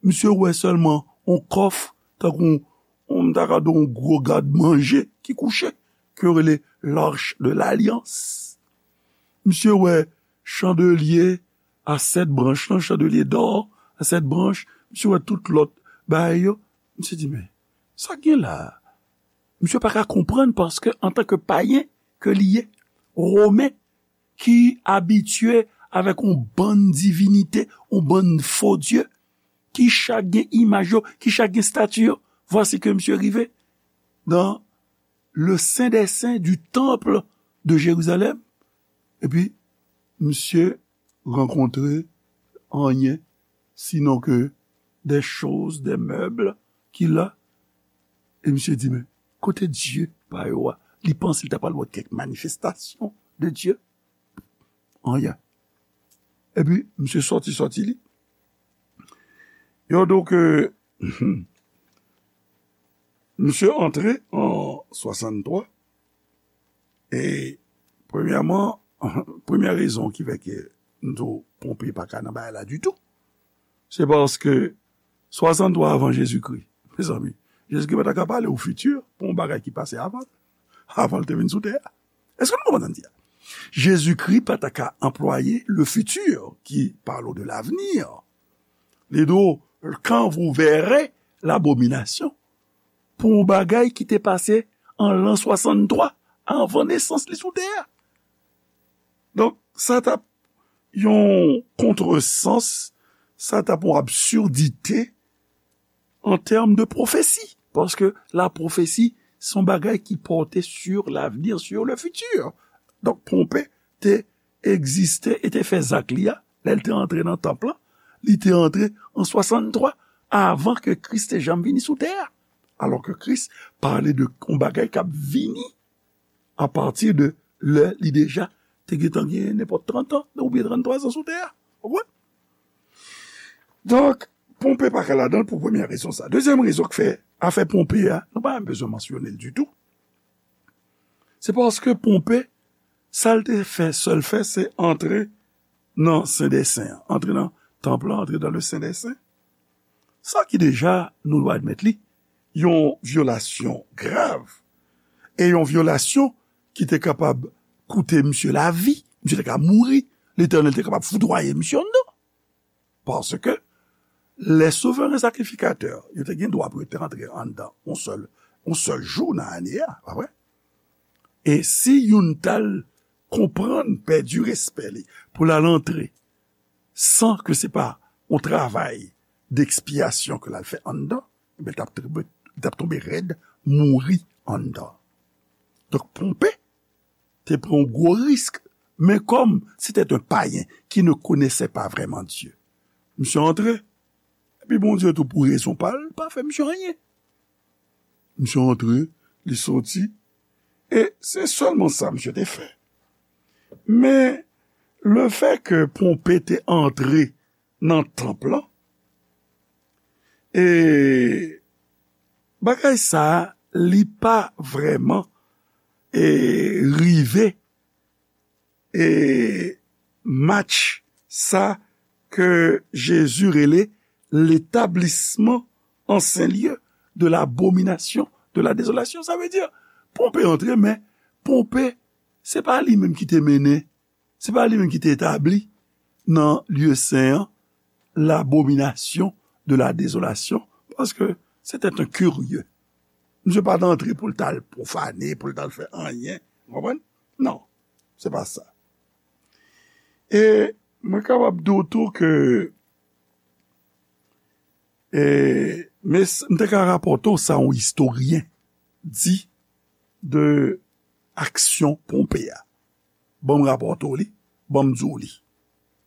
Misye wè sèlman yon kòf, tankou yon, yon, m ta ka di yon gwo gad manje ki kouche, ke yo rele l'Arche de l'Alliance. Misye wè chandelye a sèt branch lan, chandelye dò a sèt branch. Misye wè tout lòt bagay yo. Misye di, "Men, sa k gen la a?" Misye pa ka konprann paske antanke payen ke li ye, Women ki abitye avèk yon bann divinite, yon bann fo dye, ki chak gen imaj yo, ki chak gen estati yo. Vwasi ke misye rive dans le saint des saints du temple de Jérusalem, epi misye rankontre anyen, sinon ke des choses, des meubles ki la. E misye di, "Men, kote Dye pa yo a?" Li panse li ta pral wè kèk manifestasyon de Dye. Anyen. Epi, misye sòti, sòti li. Yo di w ke misye antre an swasanntwa. E premyèman, premyè rezon ki fè ke m di w Ponpe pa ka nan bagay la ditou, se paske swasanntwa avan Jezikri, mezanmi, Jezikri pa ta ka pale ou fiti pou yon bagay ki pase avan, avan l te vin sou tè a. Èske nou konprann sa m di a? Jezikri pa ta ka anplwaye le futur qui parle de l'avenir. Li di w, "Quand vous verrez l'abomination," pou yon bagay ki te pase an lan swasanntwa avan nesans li sou tè a. Donk, sa t ap yon kontresans, sa t ap yon absurdite an tèm de pwofesi. Paske la pwofesi, se yon bagay ki pòte sur l'avenir, sur le futur. Donk, Ponpe te egziste e te fè zak li a, lè l te antre nan tanp lan, Li te antre an swasanntwa, avan ke Kris te janm vini sou tè a. Alò ke Kris pale de yon bagay k ap vini apati de lè li deja te gentan gen nenpòt trant an oubyen tranntwa zan sou tè a. Ou konprann? Donk, Ponpe pa ka ladan l pou premyè rezon sa. Dezyèm rezon k fè afè Ponpe a, nou pa menm bezwen mansyone l ditou. Se paske Ponpe, sa l te fè, sèl fè, se antre nan Sen dè Sen an, antre nan tanp lan, antre dans le Saint des Saints. Sa ki deja, nou dwe admèt li, yon vyolasyon grav, e yon vyolasyon ki te kapab koute misye lavi, misye te ka mouri, Letènèl te kapab foudwaye misye anndan. Paske lè souveren sakrifikatè yo te gen dwa pou yo te antre anndan yon sèl, yon sèl jou nan ane a, pa vre? E si youn t al konprann, pèdi respè li, pou l al antre, san ke se pa yon travay dekspyasyon ke l al fè anndan, ebyen, l t ap tonbe, l t ap tonbe rèd, mouri anndan. Donk, Ponpe te pran yon gwo risk, men kòm se te yon payen ki ne konèse pa vrèman Dye, misye antre, epi Bondye tou pou rezon pa l, pa fè misye anyen. Misye antre, li soti, e se sèlman sa misye te fè. Men, lefètke Ponpe te antre nan tanp lan, e bagay sa a, li pa vrèman, e, rive, e, match sa ke Jezi rele l'établissement en saint lieu de l'abomination, de la désolation. Sa vle di, Ponpe antre, men Ponpe, se pa li menm ki te mennen, se pa li menm ki te etabli nan lye sen an, l'abomination de la désolation, paske se te yon kirye. Misye pa t antre pou l t al pwofane, pou l t al fè anyen. Ou konprann? Non, se pa sa. E mwen kapab di w tou ke, e, men s-, m te ka rapòte w sa yon istoryen di de aksyon Ponpe a. Ban m rapòte w li, ban m di w li.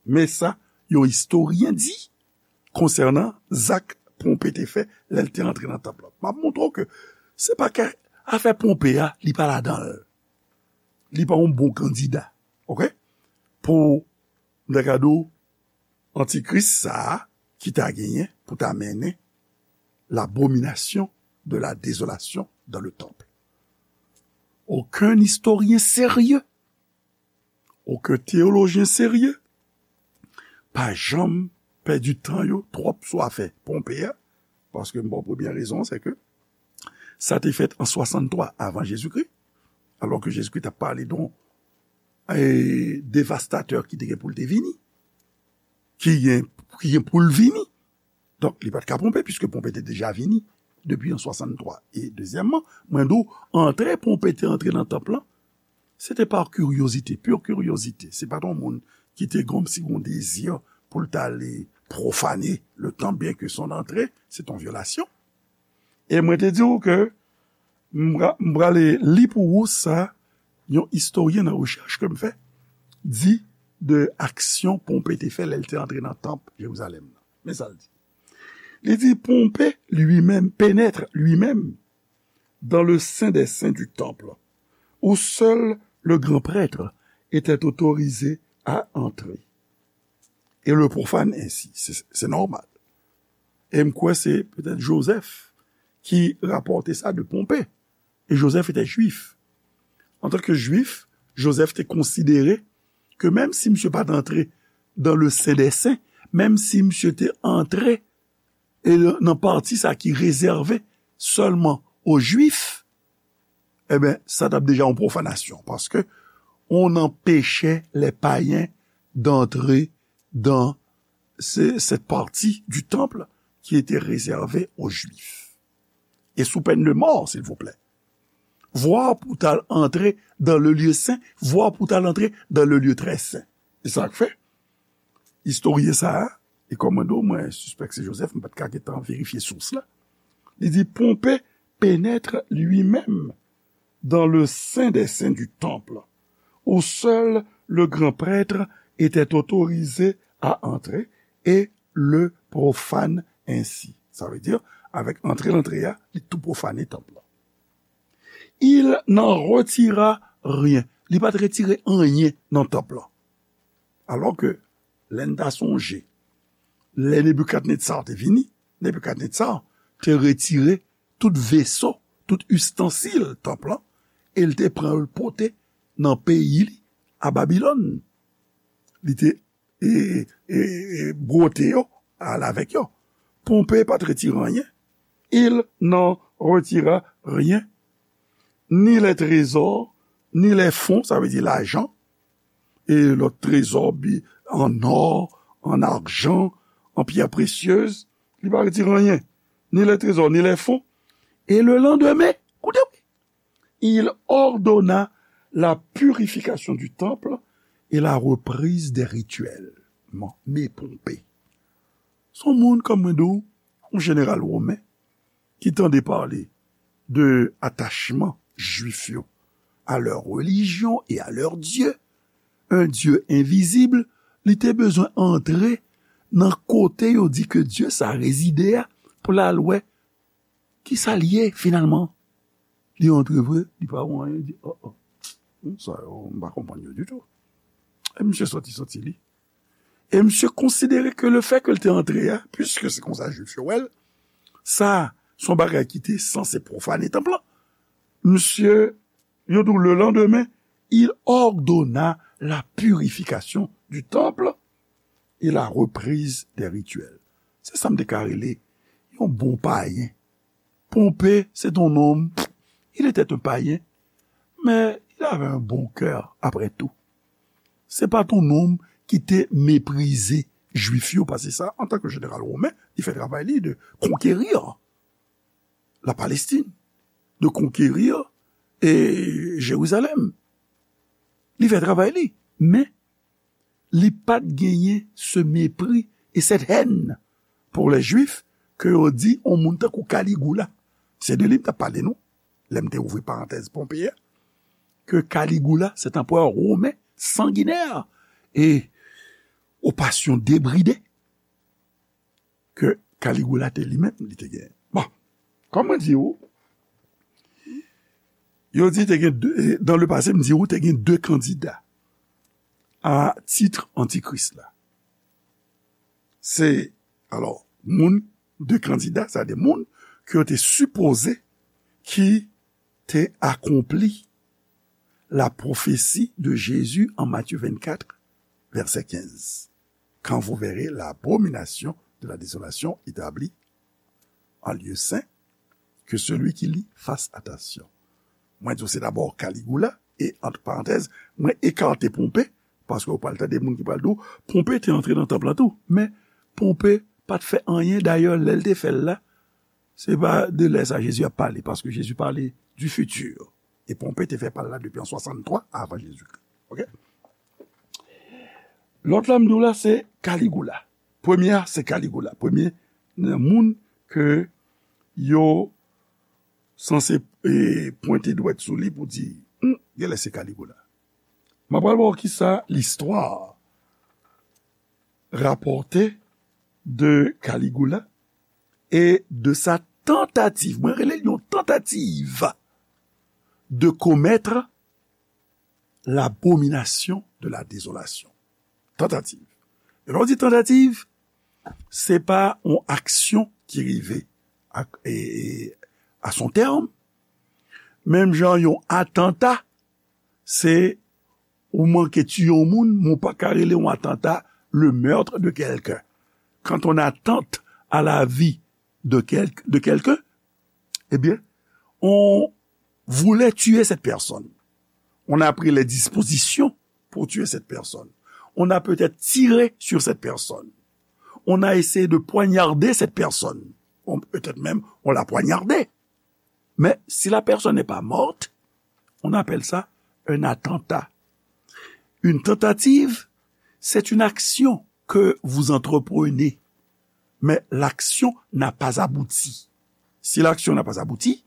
Men sa yon istoryen di konsènan zak Ponpe te fè lè l te antre nan tanp lan. M ap montre w ke se pa ke afè Ponpe a, li pa ladan l. Li pa yon bon kandida, oke? Pou, m ta ka di w, antikris sa a ki ta genyen pou ta mennen l'abomination de la désolation dans le temple. Okenn istoryen serye, okenn teyolojyen serye pa janm pèdi tan yo twòp sou afè Ponpe a, paske m ba w premyè rezon an, se ke sa te fèt an swasanntwa avan Jezikri, alò ke Jezikri t ap pale de yon, e, devastatè ki te gen pou l te vini, ki gen, ki gen pou l vini. Donk, li pa t ka Ponpe, piske Ponpe te deja vini depi an swasanntwa. E dezyèmman, mwen di w, antre Ponpe te antre nan tanp lan, se te pa kiryozite, pure curiosité. Se pa t yon moun ki te gon, si gon dezi pou l t ale pwofane le tanp, byen ke son antre, se t yon vyolasyon. E mwen te di w ke m pra-, m prale li pou ou sa, yon istoryen nan rechèch ke m fè, di de aksyon Ponpe te fè lè l te antre nan tanp Jerizalèm nan. Men sa l di. Li di, Pompée lui-même pénètre lui-même dans le saint des saints du temple, où seul le grand prêtre était autorisé à entrer, et le profane ainsi. Se, se nòmal. E m kwè se petèt Joseph ki rapòte sa de Ponpe. E Joseph etè jwif. Antanke jwif, Joseph te konsidere ke menm si misye pa t antre dans le saint des saints, menm si misye te antre e nan pati sa ki rezève sèlman o Jwif, ebyen, sa t ap deja yon pwofanasyon, paske on empêchait les païens d'entrer dans ce, cette partie du temple qui était réservée aux Juifs. Et sous peine de mort, s'il vous plaît. Voire pou t al antre dans le lieu saint, voire pou t al antre dans le lieu très saint. E sa k fè, istoryen sa a, e kòm mwen di w, mwen sispèk se Joseph, m pa t ka gentan verifye sous la. Li di, Pompée pénètre lui-même dans le saint des saints du temple, où seul le grand prêtre était autorisé à entrer, et le profane ainsi. Sa vle di, avèk antre l antre a, li tou pwofane tanp lan. Il n'en retira rien. Li pa t retire anyen nan tanp lan. Alò ke, lè n ta sonje, lè Nebikadnetsa te vini, Nebikadnetsa te retire tout veso, tout istansil tanp lan, e l te pran yo l pote nan peyi li, a Babilòn. Li te e, e, e, bwote yo, al avèk yo. Ponpe pa t retire anyen. Il n'en retira rien, ni les trésors, ni les fonds, sa vle di lajan, e lòt trezò, bi, an ò, an ajan, an pyè presyez, li pa retire anyen. Ni les trésors, ni les fonds. Et le lendemain, koute, wi, il ordonna la purification du temple et la reprise des rituels. Bon, men Ponpe. Se yon moun, kòm mwen di w, yon jeneral women, ki tande pale de atachman Jwif yo à leur religion et à leur Dieu, un Dieu invisible, li te bezwen antre nan kote yo di ke Dye sa rezide a, pou l al wè ki sa l ye finalman. Li antre vre, li pa wè anyen, li di, oh, oh, hmm, sa yo, m pa konprann yo ditou. E misye soti, soti li. E misye konsidere ke lefè ke l te antre a, piske se konsa Jwif yo wè l, sa, se yon bagay ki te sanse pwofane tanp lan. Misye, yo di w, le lendemain, il ordonna la purification du temple et la reprise des rituels. Se sa m te ka rele yon bon payen. Pompée, c'est un homme, il était un païen, mais il avait un bon cœur, après tout. Se pa t yon nonm ki te meprize Jwif yo, paske sa, antanke jeneral women, li fè travay li de conquérir la Palestine, de conquérir, e, Jérusalem. Li fè travay li, men li pa t genyen ce mépris et cette haine pour les Juifs ke yo di yon moun tankou Kaligoula. Se de li m t ap pale nou, lè m te ouvri parantèz Ponpe a, ke Kaligoula, se t anperè women sanginè e o pasyon debride, ke Kaligoula te li menm, li te gen. Bon, kòm mwen di ou, yo di te gen de, dans le passé, m di ou te gen de kandida a tit antikris la. Se, alò, moun, de kandida, sa de moun ke yo te sipoze ki te akonpli la prophétie de Jésus en Matthieu vingt-quatre, verset quinze. Quand vous verrez l'abomination de la désolation établie en lieu saint, que celui qui lit fasse attention. Mwen di w se dabò Kaligoula, e, ant parantèz, mwen ekate Ponpe, paske w pral tande moun ki pral di w, Ponpe te antre nan tanp lan tou. Men, Ponpe pa t fè anyen, dayè, lè l te fè l la, se pa de lè sa Jezi ap pale, paske Jezi pale du futur. E Ponpe te fè pa l la depi an swasanntwa avan Jezikri. Oke? Lòt la m di w la, se Kaligoula. Premye a, se Kaligoula. Premye nan moun ke yo sanse, e, pwente dwèt sou li pou di, hmm, genlè se Kaligoula. M ap pral ba w kisa listwa rapòte de Kaligoula e de sa tantativ, mwen rele l yon tantativ, de commettre l'abomination de la désolation. Tantativ. E lè w di tantativ, se pa yon aksyon ki rive a, e, e, à son terme. Menm jan yon atanta, se ou manke tiye yon moun, men w pa ka rele yon atanta le meurtre de quelqu'un. Quand on attente à la vie de quel-, de quelqu'un, eh bien, on voulait tuer cette personne. On a pris les dispositions pour tuer cette personne. On a peut-être tiré sur cette personne. On a essayé de poignarder cette personne. On, peut-être même, on l'a poignardée. Mais si la personne n'est pas morte, on appelle ça un attentat. Une tentative, c'est une action que vous entreprenez, mais l'action n'a pas abouti. Si l'action n'a pas abouti,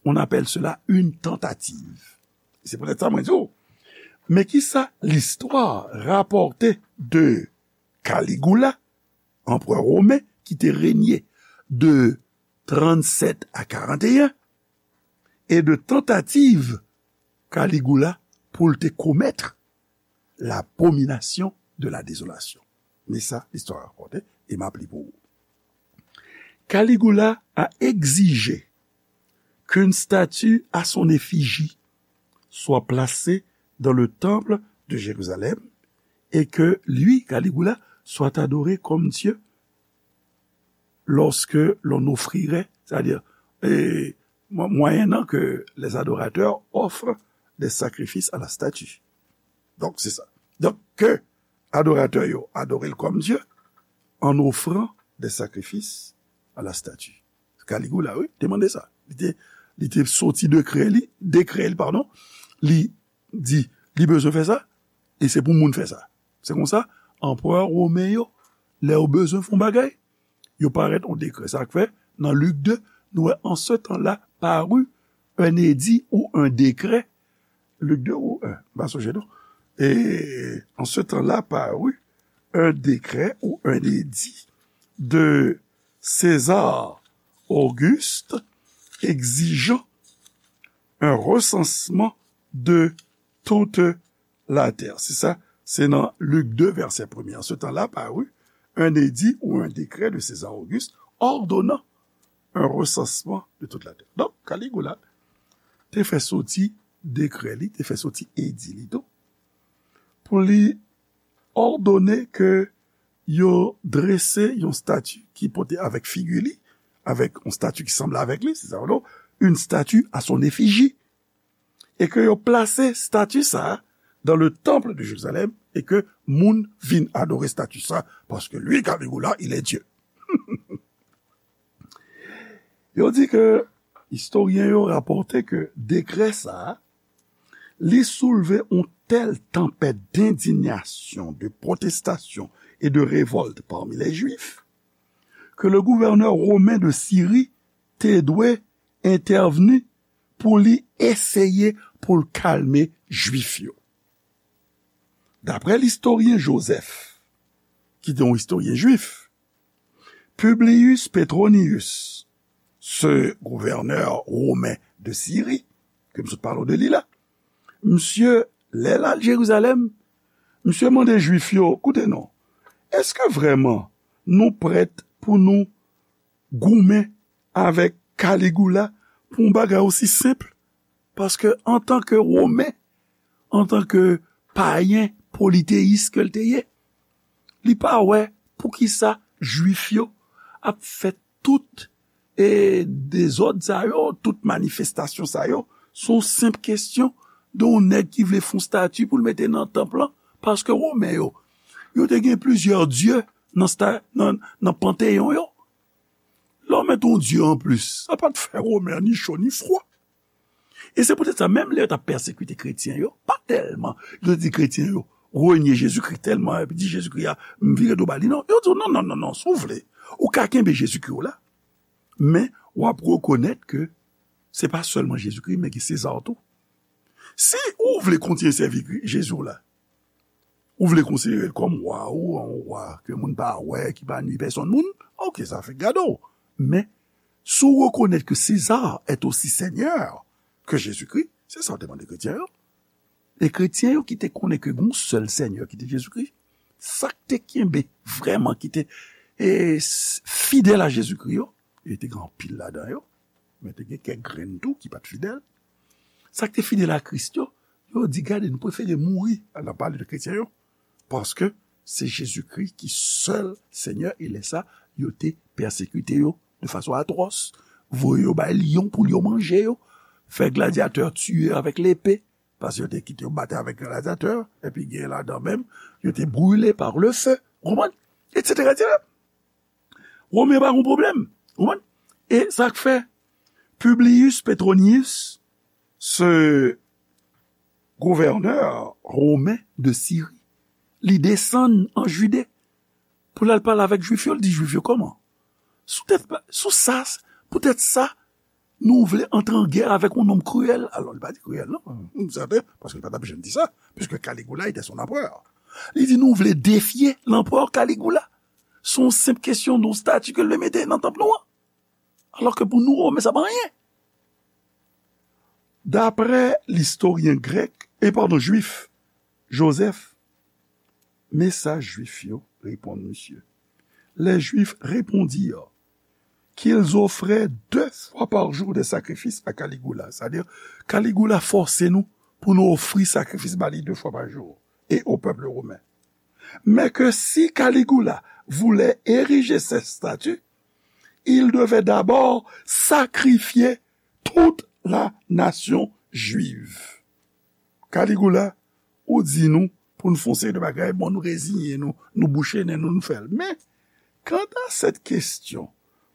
on appelle cela une tentative. Se poutèt sa mwen di w, men kisa listwa rapòte de Kaligoula anperè women ki te renye de trannsèt a karanteyen, e de tantativ Kaligoula pou l te komèt l'abomination de la désolation. Men sa, listwa rakonte, e m ap li pou ou. Caligula a exigé qu'une statue à son effigie soit placée dans le temple de Jérusalem et que lui, Caligula, soit adoré comme Dieu lorsque l'on offrirait, c'est-à-dire, et, mo- moyennant que les adorateurs offrent des sacrifices à la statue. Donk, se sa. Donk, ke adoratè yo adore l kòm Dye en offrant des sacrifices à la statue. Caligula, wi, te mande sa. Li te, li te soti dekrè li, dekrè li, padon, li di, li bezwen fè sa, e se pou moun fè sa. Se konsa, anperè women yo, lè yo bezwen fè yon bagay, yo parèt yon dekrè. Sa k fè, nan Lik de, nou wè, en ce temps-là parut un édit ou un décret, Lik de ou un, m pa sonje non. Et en ce temps-là parut un décret ou un édit de César Auguste exigeant un recensement de toute la terre. Se sa, se nan Lik de, vèsè premye. En ce temps-là parut un édit ou un décret de César Auguste ordonnant un recensement de toute la terre. Donk, Caligula te fè soti dekrè li, te fè soti edi li tou, pou li òdone ke yo drese yon stati ki pote avèk figi li, avèk yon stati ki sanble avèk li, se sa, non, une statue à son effigie, e ke yo plase stati sa a dans le temple de Jérusalem, e ke moun vin adore stati sa, paske li, Caligula, il est Dieu. Yo di ke, istoryen yo rapòte ke dekrè sa a, li soulve yon tèl tanpèt d'indignation, de protestation et de révolte parmi les Juifs, que le gouverneur romain de Syrie te dwe entèvni pou li eseye pou l kalme Jwif yo. Daprè listoryen Joseph, ki te yon istoryen jwif, Publius Petronius, ce gouverneur romain de Syrie, ke m sot pale w de li la, misye, lè l al Jerizalèm, misye mande Jwif yo, koute non, èske vrèman nou prèt pou nou goumen avèk Caligula pou yon bagay osi senp? Paske antanke Women, antanke payen politeyis ke l te ye, li pa wè poukisa Jwif yo ap fè tout, e, dezòd sa yo, tout manifestasyon sa yo, se yon senp kesyon de yon nèg ki vle fè yon stati pou l mete nan tanp lan, paske Women yo, yo te gen plizyè dye nan, sta, nan, nan panteyon yo. Lè w mete yon dye anplis, sa pa t fè Women ni cho ni fwa. E se poutèt sa, menm lè yo t ap pèsekite kretyen yo, pa tèlman yo te di kretyen yo renye Jezikri tèlman, epi di Jezikri a, m vire do ba li, non. Yo di w, non, non, non, non, si w vle, ou ka kenbe Jezikri w la, men w ap rekonèt ke se pa sèlman Jezikri, men gen Seza tou. Si ou vle kontinye sèvi Jezi w la, ou vle konsidere l kòm wa ou, yon wa ke moun pa wè, ki pa nui pèsonn moun, oke, sa fèk gade w. Men, si w rekonèt ke César est aussi Seigneur que Jésus-Christ, se sa w te mande kretyen yo. E kretyen yo ki te konnen ke gen yon sèl Senyè ki te Jezikri, sa k te kenbe vrèman, ki te, e, s- fidèl a Jezikri yo, e te gen anpil ladan yo, men te gen kèk grenn tou ki pa t fidèl. Sa k te fidèl a Kris yo, yo di, gade, nou prefere mouri, nan pale de kretyen yo, paske se Jezikri ki sèl Senyè, e lè sa, yo te pèsekite yo de fason atwòs, voye yo bay lyon pou lyon manje yo, fè gladyatè tiye avèk lepe, paske yo te kite yo batay avèk gladyatè, epi gen ladan menm, yo te brile par le feu, ou konprann? Etsetera, etsetera. Women pa gen pwoblèm, ou konprann? E sa k fè Publius Petronius, ce gouverneur romain de Syrie, li desann an Jide pou l al pale avèk Jwif yo, l di Jwif yo, kòman? Sou tèt, sou sa, poutèt sa, nou vle antre an gè avèk yon nonm kriyèl. Alò, li pa di kriyèl, non. M sèten, paske li pa t ap janm di sa, puisque Caligula était son empereur. Li di, nou vle defye lanperè Caligula. Se yon senp kesyon de yon stati ke l vle mete nan tanp nou an. Alò ke pou nou, Romen, sa pa anyen. Daprè listoryen grèk, e padon, jwif, Joseph, men sa jwif yo reponn misye. Les Juifs répondirent qu'ils offraient deux fois par jour des sacrifices à Caligula. Sa di, Caligula fòse nou pou nou ofri sakrifis ba li de fwa pa jou, et au peuple romain. Mais que si Caligula voulait ériger cette statue, il devait d'abord sacrifier toute la nation juive. Caligula, ou di nou pou n fè yon seri de bagay, bon, nou reziyen nou, nou bouche nen nou, nou fè l. Men, kanta sèt kesyon,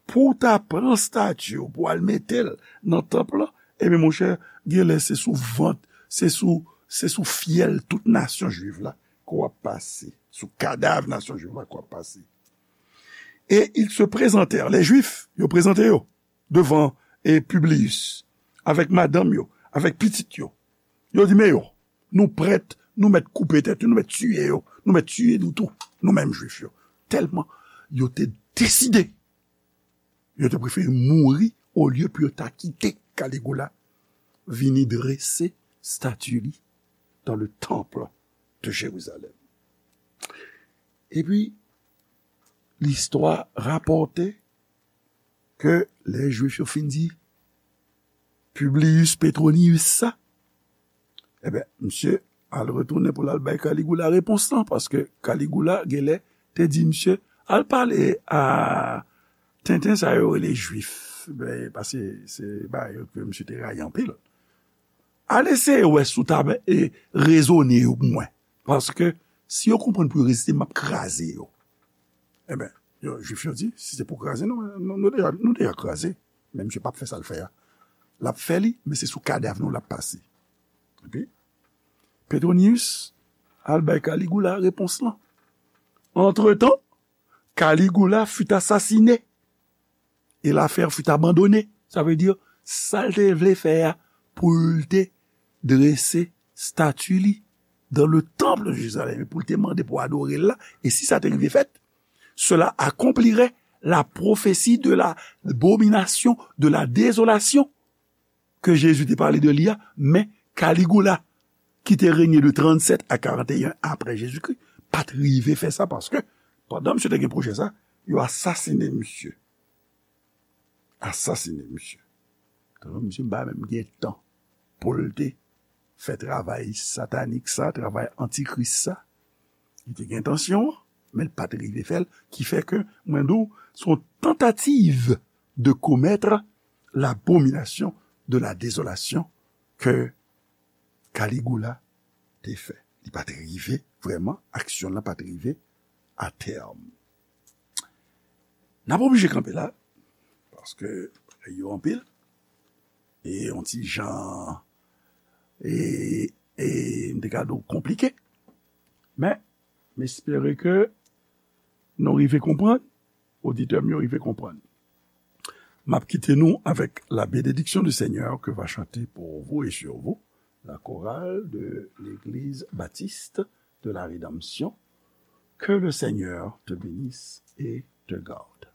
pou w ta pran stati w, pou w al mete l nan tanp lan, ebyen, monchè, genlè se sou vant, se sou, se sou fyèl tout nasyon jwiv la ke w ap pase, sou kadav nasyon jwiv la ke w ap pase. Et ils se présentèrent, les Juifs, yo prezante yo devan, e, Publius, avèk madanm yo, avèk pitit yo. Yo di, men yo, nou prèt, nou mèt koupe tèt yo, nou mèt tiye yo, nou mèt tiye nou tou, nou menm Jwif yo. Tèlman yo te deside, yo te prefere mouri olye pou yo ta kite Caligula vini drese stati li dans le temple de Jérusalem. Epi, listwa rapòte ke lè Jwif yo fin di Publius Petronius sa, ebyen, misye al retounen pou l al bay Caligula repons lan, paske Caligula, genlè, te di misye, al pale a tenten sa yo rele Jwif. Ben, paske se bagay yo ke misye te rayi anpil. Al eseye wè si w ta, e, rezone yo pou mwen. Paske si yo konprann pou yo reziste, m ap kraze yo. Ebyen, yo, Jwif yo di, si se pou kraze nou, nou, nou deja, nou deja kraze. Men misye p ap fè sa l fè a. L ap fè li, men se sou kadav nou l ap pase. Epi, Petronius al bay Caligula repons lan. Antretan, Caligula fut assassiné et l'affaire fut abandonnée. Sa vle di, sa l te vle fè a, pou l te drese stati li dans le temple de Jérusalem, pou l te mande pou adore l la, e si sa te rive fèt, cela accomplirait la prophétie de l'abomination, de la désolation que Jésus te pale de li a, men Caligula, ki te renye de trannsèt a karanteyen apre Jezikri, pa t rive fè sa, paske pandan misye te gen pwojè sa, yo asasinen misye. Asasinen misye. Tande, misye pa menm gen tan pou l te fè travay satanik sa, travay antikris sa. Li te gen entansyon an, men l pa t rive fè l, ki fè ke mwen di w, se yon tantativ de commettre l'abomination de la désolation ke Caligula te fè. Li pa t rive, vrèman, aksyon lan pa t rive a tèm. N ap oblije kanpe la, paske bagay yo anpil, e yon ti jan, e, e m te ka di w konplike, men m espere ke nou rive konprann, oditè m yo rive konprann. M ap kite nou avec la bénédiction du Seigneur que va chanter pour vous et sur vous la chorale de l'Église Baptiste de la Rédemption. Que le Seigneur te bénisse et te garde.